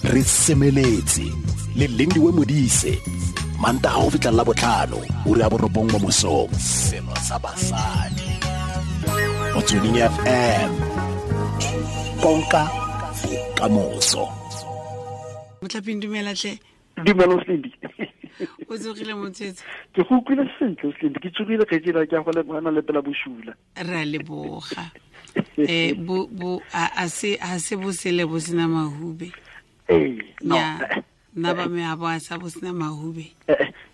Re semeletse le Lindiwe Modise, Mantaga go fitlha la botlhano, ura ya 9 mo mosong. Selo sa basadi. Motsweding FM. Konka bokamoso. Motlhaping, dumela tle. Dumela, Slindi. O tsogile, motshwetso? Ke go utlwile sentle, Slindi. Ke tsogile, kgaitsedi, ke a go lebogana le pela bosula. Re a leboga. Bo bo a se a se bosele bo sena mahube. Ee, no. Ya nna ba me a bo a sa bo sena mahube.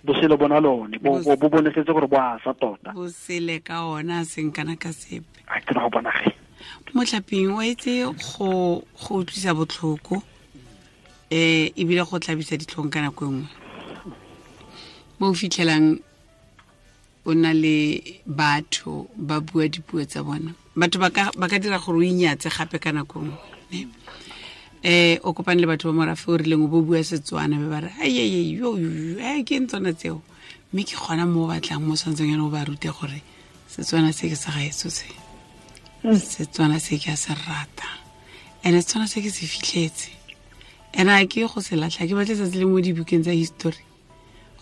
Bosele bona lone bo bo bonesetse gore bo a sa tota. Bosele ka ona a seng kana ka sepe. A ke go bona ge. Motlhaping, o etse go utlwisa botlhoko, ebile go tlabisa ditlhong ka nako e nngwe mo o fitlhelang o na le batho ba bua dipuo tsa bona. Batho ba ka dira gore o inyatse gape ka nako nngwe, ne? O kopane le batho ba morafe o rileng, o bo bua Setswana, be ba re ayeye yo yo, ke eng tsona tseo? Mme ke gona mo o batlang, mo tshwanetseng yana o ba rute gore Setswana se ke sa gaetso, se Setswana se ke a se rata, and-e Setswana se ke se fitlhetse, and a ke go se latlha. Ke batle tsatsi le mo dibukeng tsa history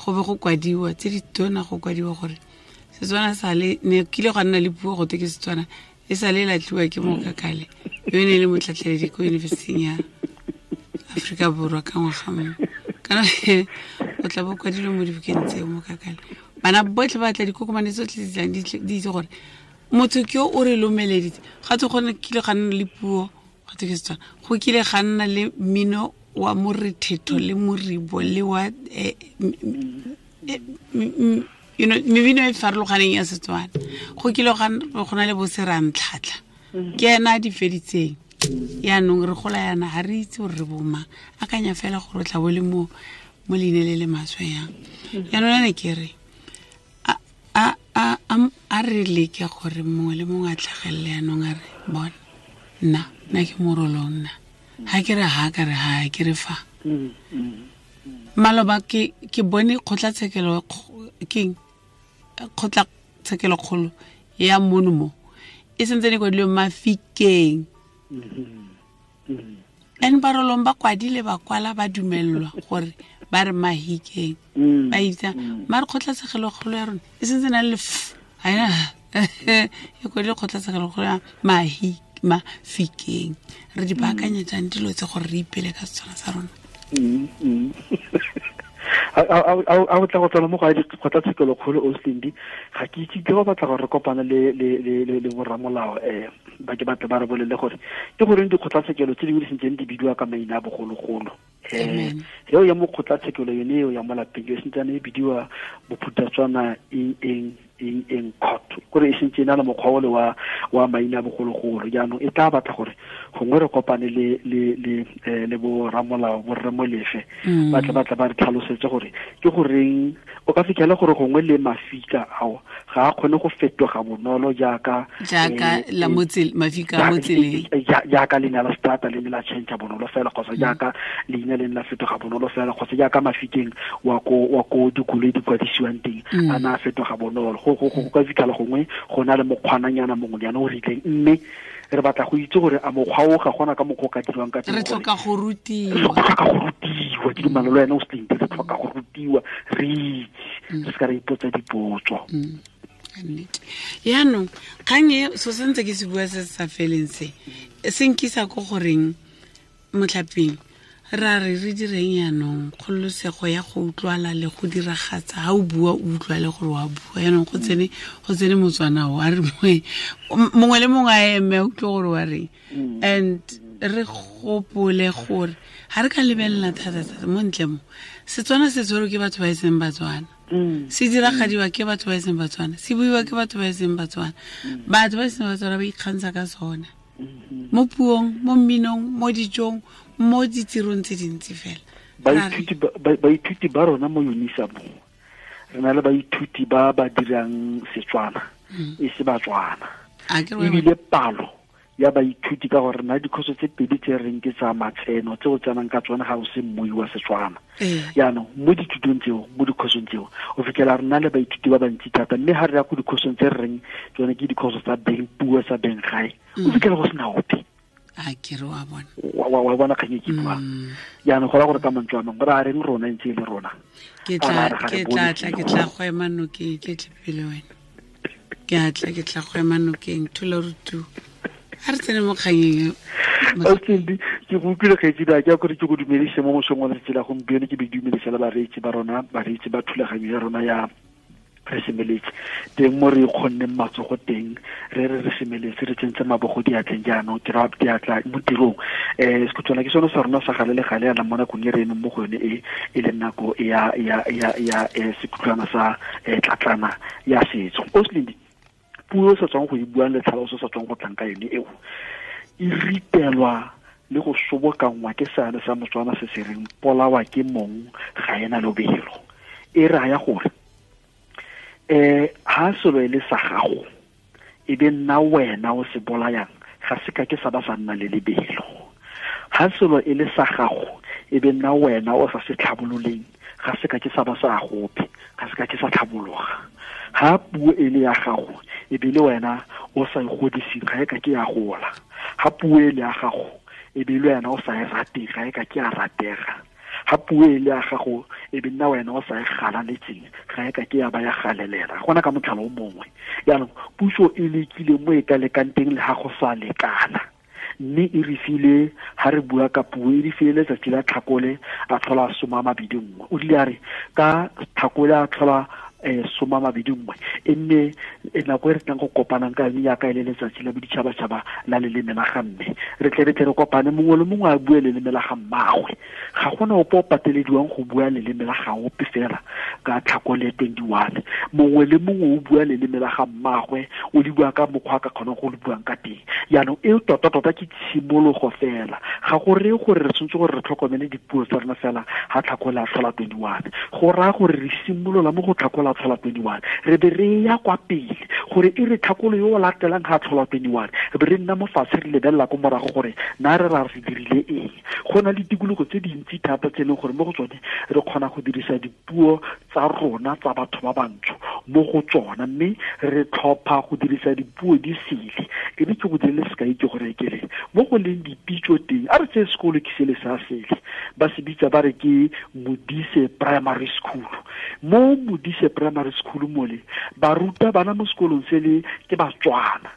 go be go kwadiwa tse di tona, go kwadiwa gore Setswana sale ne kile gwa nna le puo go te ke Setswana, e sa le latlhiwa ke Mokakale yo e ne e le motlhatlheledi ko Yunibesiting ya Aforika Borwa ka ngwaga mongwe. Kana o tla bo kwadilwe mo dibukeng tseo, Mokakale. Bana botlhe ba tla, dikokomane tsotlhe di tlang di itse gore motho ke yo o re lomeleditse. Ga tse gone kile ga nna le puo go te ke Setswana, go kile ga nna le mmino wa morethetho le moribo le wa mebino e farologaneng ya Setswana. Go kile go na le boserantlhatlha, ke ena a di feditseng. Yaanong re gola yana, ga re itse gore re bomang. Akanya fela gore o tla bo le mo leine le le maswe yang. Yaanong ane ke re a re leke gore mongwe le mongwe a tlhagelele yaanong a re, bona, nna ke Morolong, nna ha ke re ha ka re ha ke re fa. Maloba ke bone kgotlatshekelo, keng, kgotlatshekelo kgolo ya mono mo e sentse ne kwadilwe Mafikeng, and Barolong ba kwadile, ba kwala, ba dumelelwa gore ba re Mahikeng. Ba itsa mare kgotlatshekelo kgolo ya rona e sentse na le f, ga ena e kwadile kgotlatshekelo kgolo ya Mafikeng. Re di baakanya jang dilo tse gore re ipele ka Setswana sa rona? A o tla go tsena mo go kgotlatshekelo kgolo, Oslindi? Ga ke itse, ke go batla gore re kopane le borramolao, ba ke batle ba re bolele gore ke goreng dikgotlatshekelo tse dingwe di sentseng di bidiwa ka maina a bogologolo. Eo ya mo kgotlatshekelo yone eo ya mo lapeng e sentsane e bidiwa Bophuthatswana eng eng eng eng court, kore e sentse e na le mokgwa ole wa maina a bogologolo. Jaanong e tla batla gore gongwe re kopane le bo ramolao, bo rre Molefe, ba tle ba re tlhalosetse gore ke goreng o ka fitlhela gore gongwe le mafika ao ga a kgone go fetoga bonolo jaaka jaaka la mafika a mo tseleng. Jaaka leina la strata le ne la change bonolo fela, kgotsa jaaka leina le ne la fetoga bonolo fela, kgotsa jaaka Mafikeng wa ko dikoloi di kwadisiwang teng a na a fetoga bonolo. Go ka fitlhela gongwe go na le mokgwananyana mongwe yana o rileng, mme re batla go itse gore a mokgwa o ga gona ka mokgwa o ka dirwang ka teng. Re tlhoka go rutiwa. Re tlhoka go rutiwa, ke dumela le wena o Slindi. Re tlhoka go rutiwa, re itse, re se ka re ipotsa dipotso. Nnete. Yaanong kgang e so sentse ke se bua se se sa feleng, se se nkisa ko goreng, motlhaping, ra re re direng yaanong kgololosego ya go utlwala le go diragatsa? Ga o bua, o utlwa le gore wa bua. Yaanong go tsene Motswana o a re mongwe le mongwe a eme a utlwe gore wa reng. And re gopole gore ga re ka lebelela thata-thata mo ntle mo, Setswana se tshwerwe ke batho ba e seng Batswana, se diragadiwa ke batho ba e seng Batswana, se buiwa ke batho ba e seng Batswana. Batho ba e seng Batswana ba ikgantsha ka sona mo puong, mo mminong, mo dijong, mo ditirong tse dintsi fela. Baithuti ba rona mo Unisa mo, re na le baithuti ba ba dirang Setswana e se Batswana. A ke re Ebile palo ya baithuti, ka gore na dikhoso tse pedi tse reng ke tsa matseno tse o tsenang ka tsone ga o se mmui wa Setswana. Jaanong mo dithutong tseo, mo dikhosong tseo, o fitlhela re na le baithuti ba bantsi thata, mme ga re ya ko dikhosong tse re reng tsone ke dikhoso tsa beng puo, tsa beng gae, o fitlhela go sena ope. A ke re wa bona. Wa bona kgang e ke buang. Jaanong go raya gore ka mantswe a mangwe re a reng rona ntse e le rona. Ke tla go ema nokeng ke tle pele wena. Ke tla go ema nokeng thula rutu. A re tsene mo kganyeng. Austin, ke go utlwile kgaitsedi a ke a kore ke go dumedise mo mosong wa letsatsi la gompieno, ke be dumedise le bareetsi ba rona, bareetsi ba thulaganyo ya rona ya re semeletse teng mo re kgonneng matsogo teng, re re semeletse re tsentse mabogo diatleng jaanong ke ra diatla mo tirong. Sekhutswana ke sone sa rona sa gale le gale yana mo nakong e re emeng mo go yone e e leng nako ya sekhutlwana sa tlatlana ya setso. Osling, puo e sa tswang go e buang le tlhaloso sa tswang go tlang ka yone eo e ritelwa le go sobokanngwa ke seane sa Motswana se se reng polawa ke mong ga ena lobelo. E raya gore ha selo e le sa gago e be nna wena o se bolayang, ga se ka ke sa ba sa nna le lebelo. Ha selo e le sa gago e be nna wena o sa se tlhabololeng, ga se ka ke sa ba sa gope, ga se ka ke sa tlhabologa. Ha puo e le ya gago e be le wena o sa e godiseng, ga e ka ke ya gola. Ha puo e le ya gago e be le wena o sa e rateng, ga e ka ke ya ratega. Ha puo e le ya gago e be nna wena o sa e galaletseng, ga e ka ke ya ba ya galelela. Gona ka motlhala o mongwe. Jaanong puso e lekile mo e ka lekang teng le ha go sa lekana, mme e re file, ha re bua ka puo, e re file letsatsi la Tlhakole a tlhola 21. O rile a re ka Tlhakole a tlhola 21, e nne nako e re tlang go kopanang ka yone jaaka e le letsatsi la boditšhabatšhaba la leleme la ga mme. Re tle re kopane, mongwe le mongwe a bue leleme la ga mmagwe. Ga gona ope o patelediwang go bua leleme la ga ope fela ka Tlhakole 21. Mongwe le mongwe o bua leleme la ga mmagwe, o le bua ka mokgwa a ka kgonang go le buang ka teng. Jaanong e tota-tota ke tshimologo fela. Ga go reye gore re tshwanetse gore re tlhokomele dipuo tsa rona fela ga Tlhakole a tlhola 21. Go raya gore re simolola mo go Tlhakole a tlhola 21, re be re ya kwa pele gore e re Tlhakole yo o latelang ga a tlhola 21, re be re nna mo fatshe re lebelela ko morago gore na re ra re dirile eng. Go na le tikologo tse dintsi thata tse e leng gore mo go tsone re kgona go dirisa dipuo tsa rona tsa batho ba bantsho mo go tsona, mme re tlhopha go dirisa dipuo di sele. Ke ne ke go dirile sekai ke gore ke re mo go leng dipitso teng, a re tseye sekolo ke sele sa sele, ba se bitsa ba re ke Modise Primary School. Mo Modise Primary School mole baruta bana mo sekolong sele ke Batswana,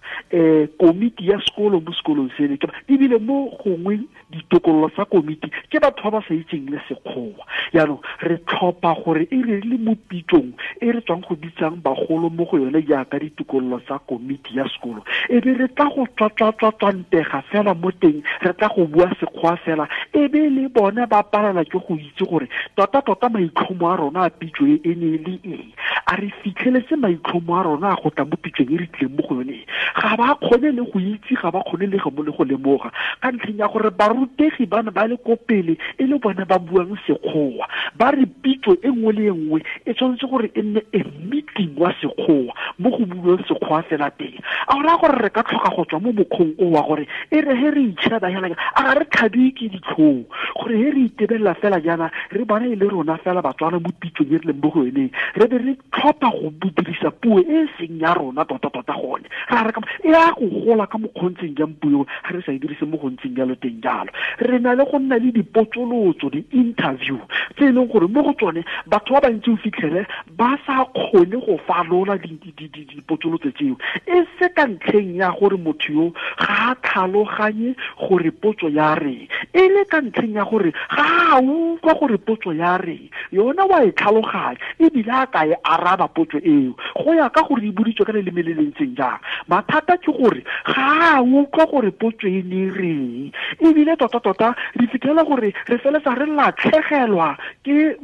komiti ya sekolo mo sekolong sele ke ebile mo gongwe ditokololo tsa komiti ke batho ba ba sa itseng le sekgowa. Jaanong re tlhopha gore e re le mo pitsong e re tswang go bitsang bagolo mo go yone jaaka ditokololo tsa komiti ya sekolo, e be re tla go tswatswatswatswantega fela mo teng, re tla go bua sekgowa fela, e be le bone ba palelwa ke go itse gore tota-tota maitlhomo a rona a pitso e ne e le eng. A re fitlheletse maitlhomo a rona a go tla mo pitsong e re tlileng mo go yone? Ga ba kgone le go itse, ga ba kgone le go lemoga, ka ntlheng ya gore barutegi ba ne ba le ko pele e le bone ba buang sekgowa. Ba re pitso e nngwe le e nngwe e tshwanetse gore e nne a meeting wa sekgowa mo go buiwang sekgowa fela teng. A go raya gore re ka tlhoka go tswa mo mokgweng o wa gore e re he re itšheba fela, a ga re tlhabiwe ke ditlhong gore he re itebelela fela jaana re bona e le rona fela Batswana mo pitsong e re leng mo go yoneng, re be re tlhopha go dirisa puo e seng ya rona tota-tota gone. Ra re e ya go gola ka mokgontseng jang puo ga re sa e dirise mo gontseng jalo teng jalo. Re na le go nna le dipotsolotso, di-interview tse e leng gore mo go tsone batho ba bantsi o fitlhele ba sa kgone go falola dipotsolotso tseo, e se ka ntlheng ya gore motho yo ga a tlhaloganye gore potso ya reng, e le ka ntlheng ya gore ga a utlwa gore potso ya reng, yona wa e tlhaloganya ebile a ka e araba potso eo go ya ka gore e boditswe ka leleme le le ntseng jang. Mathata ke gore ga a utlwa gore potso e ne reng, ebile tota-tota re fitlhela gore re feletsa re latlhegelwa ke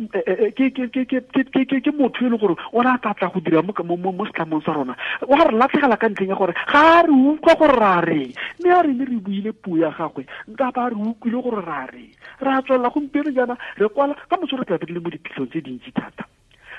motho e leng gore o ne a tla tla go dira mo setlamong sa rona. Wa re latlhegela ka ntlheng ya gore ga re utlwa gore ra reng, mme a re ne re buile puo ya gagwe nka ba re utlwile gore ra reng. Re a tswelela gompieno jaana re kwala ka moso, re tla be re le mo diphitlhong tse dintsi thata.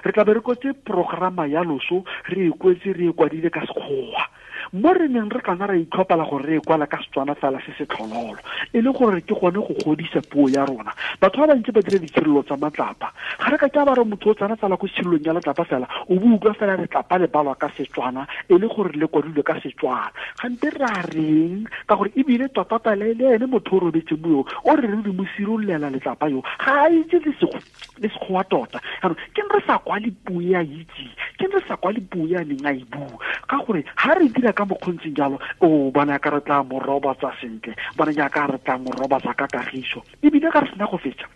Re tla be re kwetse programa ya loso, re e kwetse, re e kwadile ka sekgowa. Mo re neng re kana ra itlhopela gore re e kwala ka Setswana fela se se tlhololo, e le gore ke gone go godisa puo ya rona. Batho ba bantsi ba dira ditshirelo tsa matlapa. Ga re ka ke ba re motho o tsena tsala ko tshirelong ya letlapa fela, o bo utlwa fela letlapa le balwa ka Setswana, e le gore le kwadilwe ka Setswana. Gante ra reng? Ka gore ebile tota le ene motho o robetseng mo yo, o re re mo sirololela letlapa yo, ga a itse le sekgowa tota. Jaanong ke re sa kwale puo ya itse, ke re sa kwale puo ya neng a e bua, ka gore ha re dira ka mokgontseng jalo, o bona ka re tla mo robatsa sentle, bona jaaka re tla mo robatsa ka kagiso. Ebile ga re sena go fetsa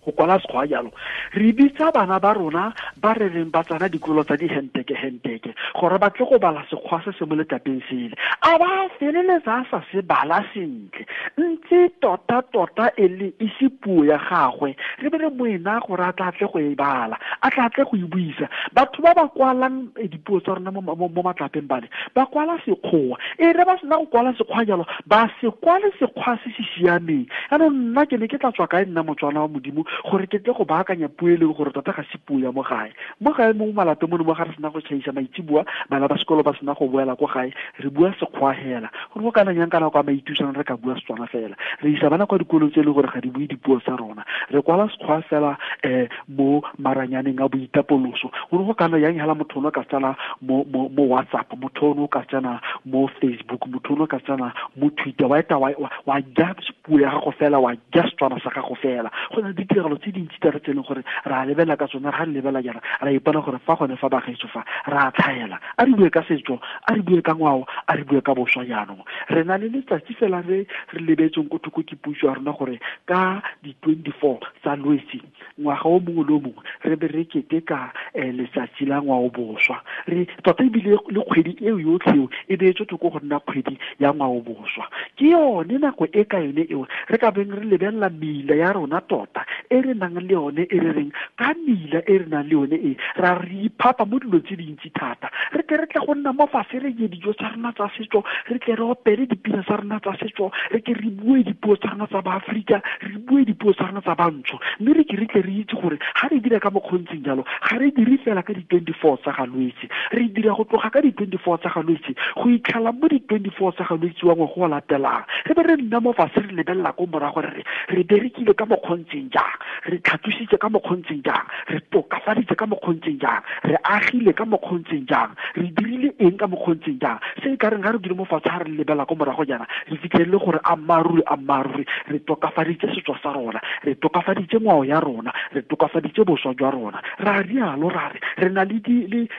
go kwala sekgwa jalo, re bitsa bana ba rona ba re reng ba tsena dikolo tsa dihenteke-henteke gore ba tle go bala sekgwa se se mo letlapeng sele, a ba feleletsa a sa se bala sentle, ntse tota-tota e le e se puo ya gagwe, re be re moena gore a tla tle go e bala, a tla tle go e buisa. Batho ba ba kwalang dipuo tsa rona mo matlapeng bale, ba kwala sekgowa, e re ba sena go kwala sekgwa jalo, ba se kwale sekgwa se se siameng. Jaanong nna ke ne ke tla tswa kae nna Motswana wa Modimo gore ke tle go baakanya puo e leng gore tota ga se puo ya mo gae. Mo gae mo malapeng mono mo ga re sena go tšhaisa maitseboa, bana ba sekolo ba sena go boela ko gae, re bua sekgwa hela. Gore go kana yang kana kwa maitusang re ka bua Setswana fela. Re isa bana kwa dikolong tse e leng gore ga di bue dipuo tsa rona. Re kwala sekgwa fela mo maranyaneng a boitapoloso. Gore go kana yang hela motho o ka tsena mo WhatsApp, motho o ka tsena mo Facebook, motho o ka tsena mo Twitter, wa eta wa ja puo ya gago fela, wa ja Setswana sa gago fela. Go na le ditiragalo tse dintsi tsa re tse e leng gore ra lebelela ka tsone, ra lebelela jaana, ra ipona gore fa gone fa bagaetsho fa ra tlhaela. A re bue ka setso, a re bue ka ngwao, a re bue ka boswa jaanong. Re na le letsatsi fela re re lebetseng ko thoko ke puso ya rona gore ka di-24 tsa Lwetse ngwaga o mongwe le o mongwe re be re keteka letsatsi la ngwao boswa. Re tota ebile le kgwedi eo yotlhe eo e beetswe thoko go nna kgwedi ya ngwao boswa. Ke yone nako e ka yone eo re ka beng re lebelela meila ya rona tota e re nang le yone, e re reng ka meila e re nang le yone e ra re iphapa mo dilong tse dintsi thata. Re tle re tle go nna mo fatshe re je dijo tsa rona tsa setso, re tle re opele dipina tsa rona tsa setso, re ke re bue dipuo tsa rona tsa Baafrika, re bue dipuo tsa rona tsa Bantsho, mme re ke re tle re itse gore ga re dira ka mokgontseng jalo, ga re dire fela ka di-24 tsa ga Lwetse, re dira go tloga ka di-24 tsa ga Lwetse go itlhela mo di-24 tsa ga Lwetse wa ngwaga o latelang. Re be re nna mo fatshe re lebelela ko morago re re re berekile ka mokgontseng jang, re tlhatlositse ka mokgontseng jang, re tokafaditse ka mokgontseng jang, re agile ka mokgontseng jang, re dirile eng ka mokgontseng jang. Se e ka reng ga re dule mo fatshe ga re lebelela ko morago jaana, re fitlhelele gore ammaaruri ammaaruri re tokafaditse setso sa rona, re tokafaditse ngwao ya rona, re tokafaditse boswa jwa rona. Ra rialo ra re re na le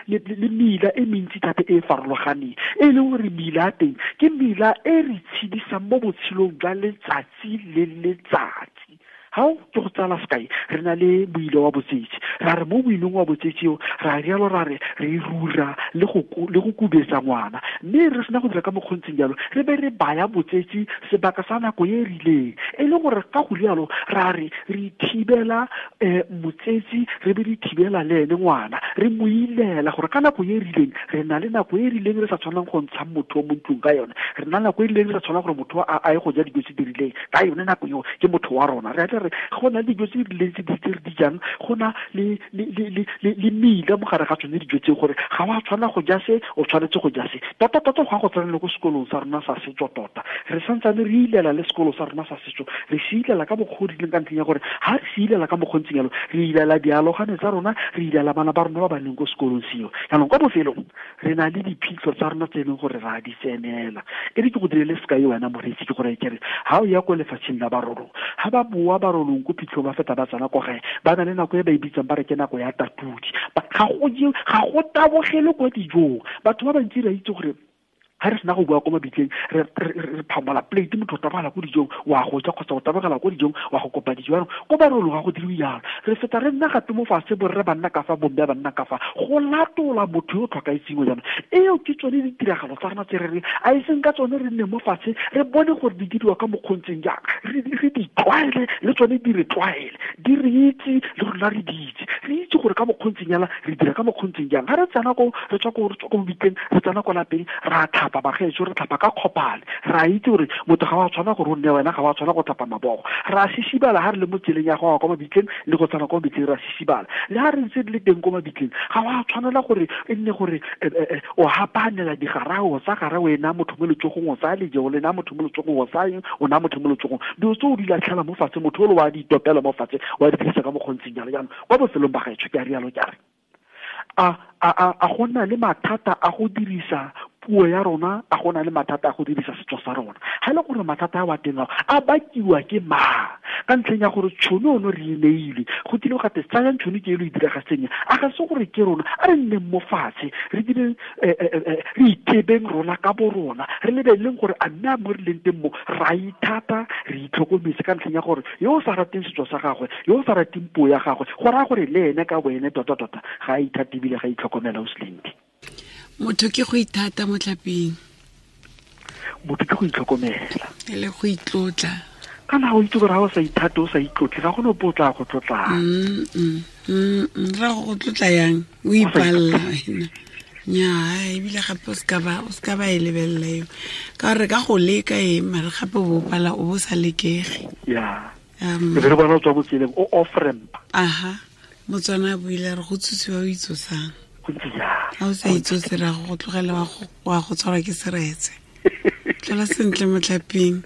le meila e mentsi thata e e farologaneng, e leng gore meila ya teng ke meila e re tshedisang mo botshelong jwa letsatsi le letsatsi. Hao ke go tsala sekai, re na le moile wa botsetsi, ra re mo moileng wa botsetsi eo ra rialo ra re re rura le go kubetsa ngwana, mme re sena go dira ka mokgontseng jalo, re be re baya botsetsi sebaka sa nako e rileng, e le gore ka go rialo ra re re thibela motsetsi, re be re thibela le ene ngwana, re mo ilela gore ka nako e rileng re na le nako e rileng re sa tshwanang go ntsha motho mo ntlong ka yone, re na le nako e rileng re sa tshwanang gore motho a ye go ja dijo tse di rileng ka yone nako eo, ke motho wa rona. Re re go na le dijo tse di rileng tse di re di jang, go na le meila mo gare ga tsone dijo tse, gore ga wa tshwana go ja se, o tshwanetse go ja se. Tota tota go ya go tsena le ko sekolong sa rona sa setso tota, re santsane re ilela le sekolo sa rona sa setso, re se ilela ka mokgwa o rileng ka ntlheng ya gore ha re se ilela ka mokgwa o ntseng jalo, re ilela dialogane tsa rona, re ilela bana ba rona ba ba leng ko sekolong seo. Jaanong kwa bofelong re na le diphitlho tsa rona tse e leng gore ra di tsenela. E re ke go direle sekai wena moreetsi, ke gore ke re ha o ya ko lefatsheng la Barolong, ha ba boa Barolong ko phitlhong ba feta ba tsena ko gae, ba na le nako e ba e bitsang ba re ke nako ya tatudi. Ga go tabogele kwa dijong. Batho ba bantsi re itse gore ha re sena go bua ko mabitleng, re phamola plate, motho o tabogela ko dijong wa go ja, kgotsa o tabogela ko dijong wa go kopa dijo. Jaanong ko Barolong ga go diriwe jalo, re feta re nna gape mo fatshe, borre ba nna ka fa, bomme ba nna ka fa, go latola motho yo o tlhokaetseng jaanong. Eo ke tsone ditiragalo tsa rona tse re reng a e seng ka tsone re nne mo fatshe re bone gore di diriwa ka mokgontseng jang, re di tlwaele le tsone di re tlwaele, di re itse le rona re di itse, Re itse gore ka mokgontseng yala re dira ka mokgontseng jang. Ga re tsena ko re tswa ko re tswa ko mobitleng, re tsena ko lapeng, ra tlhapa bagaetsho, re tlhapa ka kgopale. Ra itse gore motho ga wa tshwana gore o nne wena, ga wa tshwana go tlhapa mabogo. Ra sisibala ga re le mo tseleng ya go ya kwa mabitleng le go tsena kwa mabitleng, ra sisibala. Le ga re ntse re le teng ko mabitleng, ga wa tshwanela gore e nne gore o hapanela digarao tsa gara o e naya motho mo letsogong, o tsaya leje o le naya motho mo letsogong, o tsaya o naya motho mo letsogong. Dilo tse o di latlhela mo fatshe, motho o le wa di itopela mo fatshe, wa di dirisa ka mokgontseng jalo. Jaanong kwa bofelong ba gaetsho ke a rialo ke a re a go na le mathata a go dirisa puo ya rona, a go na le mathata a go dirisa setso sa rona. Ga e le gore mathata a wa teng ao a bakiwa ke mang? Ka ntlheng ya gore tšhono ono re e neilwe, go tlile go gate tsayang tšhono ke e lo e diragatseng, a ga se gore ke rona, a re nneng mo fatshe re dire, re itebeng rona ka bo rona, re lebeleleng gore a mme a mo re leng teng mo ra ithata, re itlhokometse. Ka ntlheng ya gore yo o sa rateng setso sa gagwe, yo o sa rateng puo ya gagwe, go raya gore le ene ka boene tota-tota ga a ithate ebile ga a itlhokomela. O Selindi, motho ke go ithata mo tlapeng, motho ke go itlhokomela e le go itlotla. Kana o itse gore ga o sa ithate, o sa itlotle, ga gone ope o tla go tlotlang. Ra go tlotla yang o ipalla wena? Nnyaa, ebile gape o seka ba e lebelela eo, ka gore ka go leka e mare gape o bo pala o bo sa lekege. Ya, e be re bona o tswa mo tseleng o off ramp. Aha, Motswana a buile re go tsosiwa o itsosang. Go ntse jalo. Ga o sa itsose ra go tlogela wa go tshwarwa ke seretse. Tlhola sentle motlhaping.